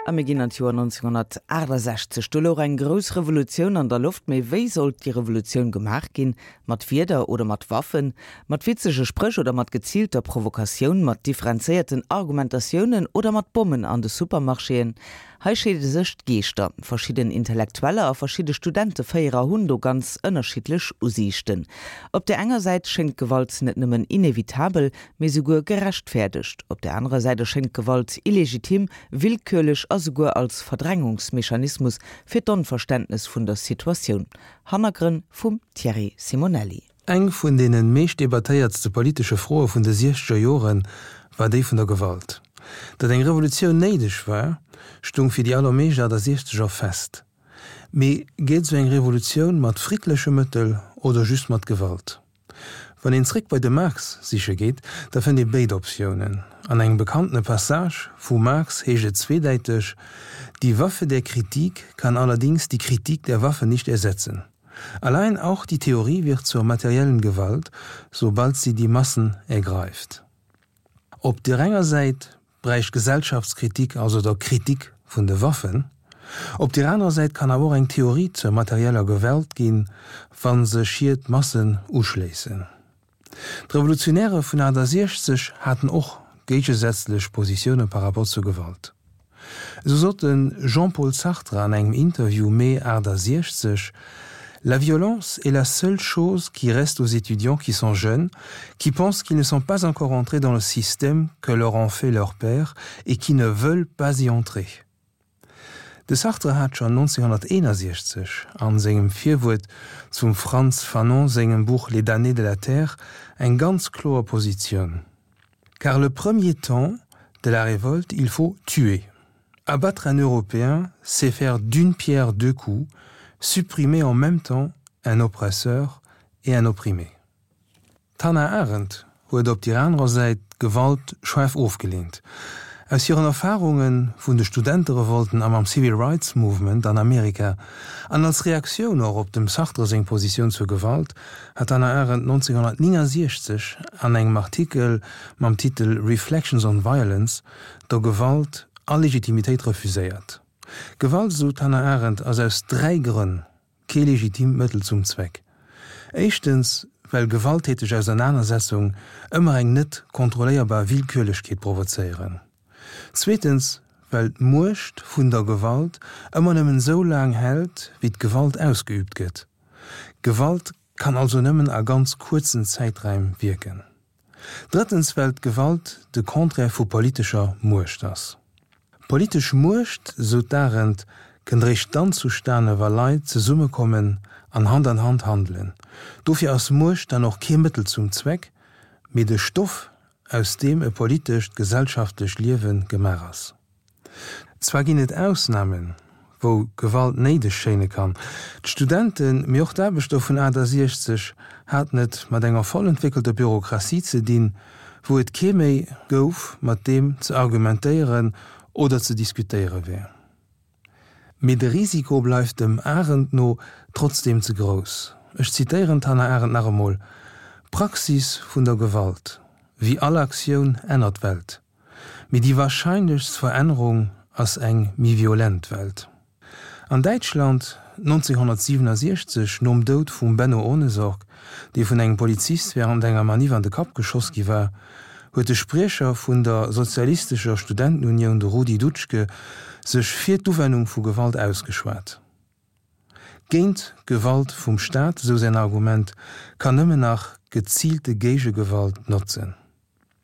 A mir ginn an d'Joer 1968. Do louch eng grouss Revolutioun an der Loft. Mee wéi sollt déi Revolutioun gemaach ginn? Mat Wierder oder mat Waffen? Mat witzege Spréch oder mat geziilter Provokatioun? Mat differenzéierten Argumentatiounen oder mat Bommen an de Supermarchéen? Hei scheede sech d'Geeschter. Verschidden Intellektueller a verschidde Studenteféierer hunn do ganz ënnerschiddlech Usiichten. Op där enger Säit schéngt Gewalt net nëmmen inevitabel, mee souguer gerechtfäerdegt. Op där anerer Säit erschéngt Gewalt illegitim, willkürlech a souguer als Verdrängungsmechanismus fir d'Onverständnes vun der Situatioun. Hannergrënn vum Thierry Simonelli. Eng vun deene meescht debattéiertste politesche Froe vun de siechzeger Jore war déi vun der Gewalt. Datt eng Revolutioun néideg war, stung fir déi allermeescht Achtasiechzeger fest. Mee geet esou eng Revolutioun mat friddleche Mëttel oder just mat Gewalt? Wann een zréck bei de Marx siche geet, da fënnt ee béid Optiounen. An engem bekannte Passage vum Marx heescht et zweedäiteg, Die Waffe der Kritik kann allerdings die Kritik der Waffe nicht ersetzen. Allein auch die Theorie wird zur materiellen Gewalt, sobald sie die Massen ergreift. Op der enger Säit bräicht Gesellschaftskritik also der Kritik vun de Waffen. Op der anerer Säit kann awer och eng Theorie zur materieller Gewalt ginn, wa sech hir d'Massen uschléissen. D'Revolutionäre vun 68 haten och géigesätzlech Positioune par rapport zur Gewalt. Esou sot de Jean-Paul Sartre an engem Interview Mee 68, La violence est la seule chose qui reste aux étudiants qui sont jeunes, qui pensent qu'ils ne sont pas encore entrés dans le système que leur ont fait leurs pères et qui ne veulent pas y entrer. De Sartre hat schonn 1961 a sengem Virwuert zum Frantz Fanon sengem Buch Les damnés de la terre eng ganz kloer Positioun, Car le premier temps de la révolte, il faut tuer. Abattre un Européen, c'est faire d'une pierre deux coups, supprimer en même temps un oppresseur et un opprimé. D'Hannah Arendt huet op dér anerer Säit d'Gewalt schaarf ofgeleent. Aus hiren Erfarunge vun de Studenterevolten a mam Civil Rights Movement an Amerika, an als Reaktioun och op dem Sartre seng Positioun zur Gewalt, hat d'Hannah Arendt 1969 an engem Artikel mam Titel Reflections on Violence der Gewalt all Legitimitéit refuséiert. Gewalt, esou d'Hannah Arendt, ass aus 3 Grënn kee legitimt Mëttel zum Zweck. Éischtens, well gewalttäteg Ausernanersetzung ëmmer eng net kontrolléierbar Willkürlechkeet provozéieren. Zweetens, well d'Muecht vun der Gewalt ëmmer nëmmen esou laang hält, wéi d'Gewalt ausgeübt gëtt. Gewalt kann also nëmmen a ganz kuerzen Zäiträim wierken. Drëttens, well d'Gewalt de Contraire vu politescher Muecht ass. Politesch Muecht, sou d'Arendt, kënnt eréischt dann zustane wa Leit zesummekommen an Hand an Hand handelen. Dofir ass Muecht dann och kee Mëttel zum Zweck, mee de Stoff, aus deem e politescht, gesellschaftlecht Liewe gemaach ass. Zwar ginn et Ausnamen, wou Gewalt néideg schéine kann. D'Studenten, mee och d'Aarbechter vun 68 haten et mat enger voll entwéckelter Bürokratie ze dinn, wou et kee méi gouf, mat deem ze argumentéieren oder ze diskutéiere wär. Mee de Risiko bleift dem Arendt no trotzdeem ze grouss. Ech zitéieren d'Hannah Arendt nach emol, D'Praxis vun der Gewalt, wéi all Aktioun, ännert d'Welt. Mee déi warscheinlechst Verännerung ass eng méi violent Welt. An Däitschland 1967, nom Doud vum Benno Ohnesorg, dee vun engem Polizist wärend enger Maniff an de Kapp geschoss gi war, huet de Spriecher vun der Sozialistescher Studentenunioun, de Rudi Dutschke, sech fir d'Uwennung vu Gewalt ausgeschwat. Géint Gewalt vum Staat, esou säin Argument, kann nëmmen nach geziilte Géigegewalt notzen.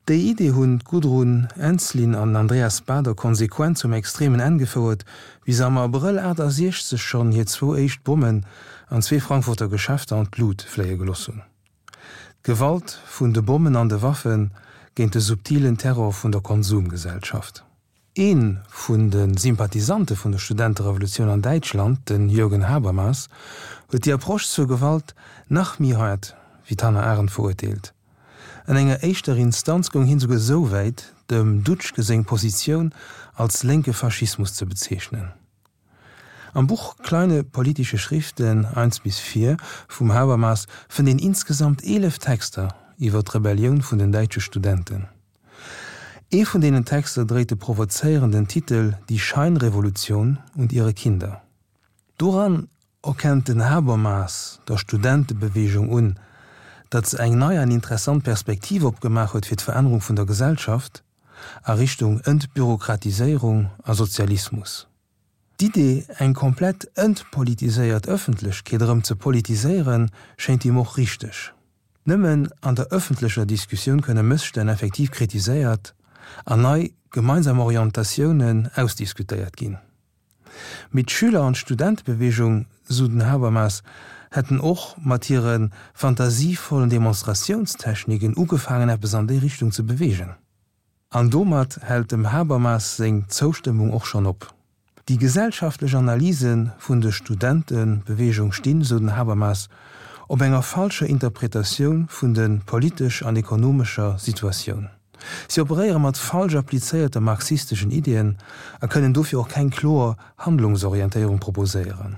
Déi Idee hunn d'Gudrun Ensslin an den Andreas Baader konsequent zum extremen Enn gefouert, wéi se am Abrëll 68 schonn hir zwou éischt Bommen an zwee Frankfurter Geschäfter an d'Lut fléie geloss hunn. D'Gewalt vun de Bommen an de Waffe géint de subtilen Terror vun der Konsumgesellschaft. Ee vun de Sympathisante vun der Studenterevolutioun an Däitschland, den Jürgen Habermas, huet déi Approche zur Gewalt nach méi haart wéi d'Hannah Arendt verurteelt. An enger éischter Instanz goung hien souguer esou wäit, dem Dutschke seng Positioun als lénke Faschismus ze bezeechnen. Am Buch Kleine politische Schriften I bis IV vum Habermas fënnt een insgesamt 11 Texter iwwer d'Rebellioun vun den däitsche Studenten. Ee vun deenen Texter dréit de provozéierenden Titel Die Scheinrevolution und ihre Kinder. Doran erkennt den Habermas der Studentebeweegung un, datt se eng nei an interessant Perspektiv opgemaach huet fir d'Verännerung vun der Gesellschaft a Richtung Entbürokratiséierung a Sozialismus. D'Idee, eng komplett entpolitiséiert Ëffentlechkeet erëm ze politiséieren, schéint him och richteg. Nëmmen an der ëffentlecher Diskussioun kënne Mësstänn effektiv kritiséiert an nei gemeinsam Orientatiounen ausdiskutéiert ginn. Mee d'Schüler an d'Studentebeweegung, sou den Habermas, hätten och mat hire fantasievollen Demonstratiounstechniken ugefaangen eppes an déi Richtung ze beweegen. An domat hält dem Habermas seng Zoustëmmung och schonn op. Déi gesellschaftlech Analyse vun de Studentebeweegung stinn, sou den Habermas, op enger falscher Interpretatioun vun de politesch an ekonomescher Situatioun. Si operéiere mat falsch applizéierte marxisteschen Iddien a kënnen dofir och keng kloer Handlungsorientéierung proposéieren.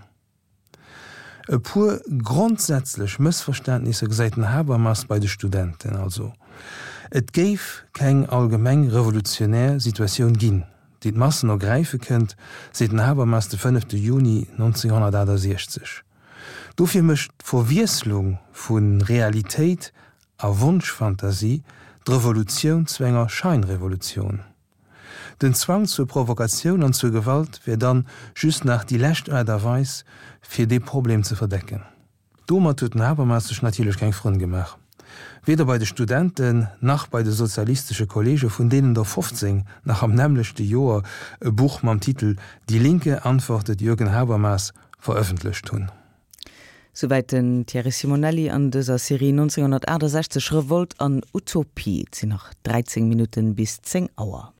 E puer grondsätzlech Mëssverständnisser gesäit den Habermas bei de Studenten also, Et géif keng allgemeng revolutionär Situatioun ginn, déi d'Massen ergräife kënnt, seet den Habermas de fënnefte Juni 1968. Dofir mécht d'Verwiesslung vu Realitéit a Wonschfantasie d'Revolutioun zu enger Scheinrevolutioun. Den Zwang zur Provokatioun an zur Gewalt wär dann just nach déi lescht Aart a Weis, fir dee Problem ze verdecken. Domat huet den Habermas sech natierlech keng Frënn gemaach. Weder bei de Studenten, nach bei de sozialistesche Kollege, vun deenen der 15 nach am nämmlechte Joer e Buch mam Titel Die Linke antwortet Jürgen Habermas verëffentlecht hunn. Souwäit den Thierry Simonelli an dëser Serie 1968, Revolt an Utopie. Et sinn nach 13 Minutten bis 10 Auer.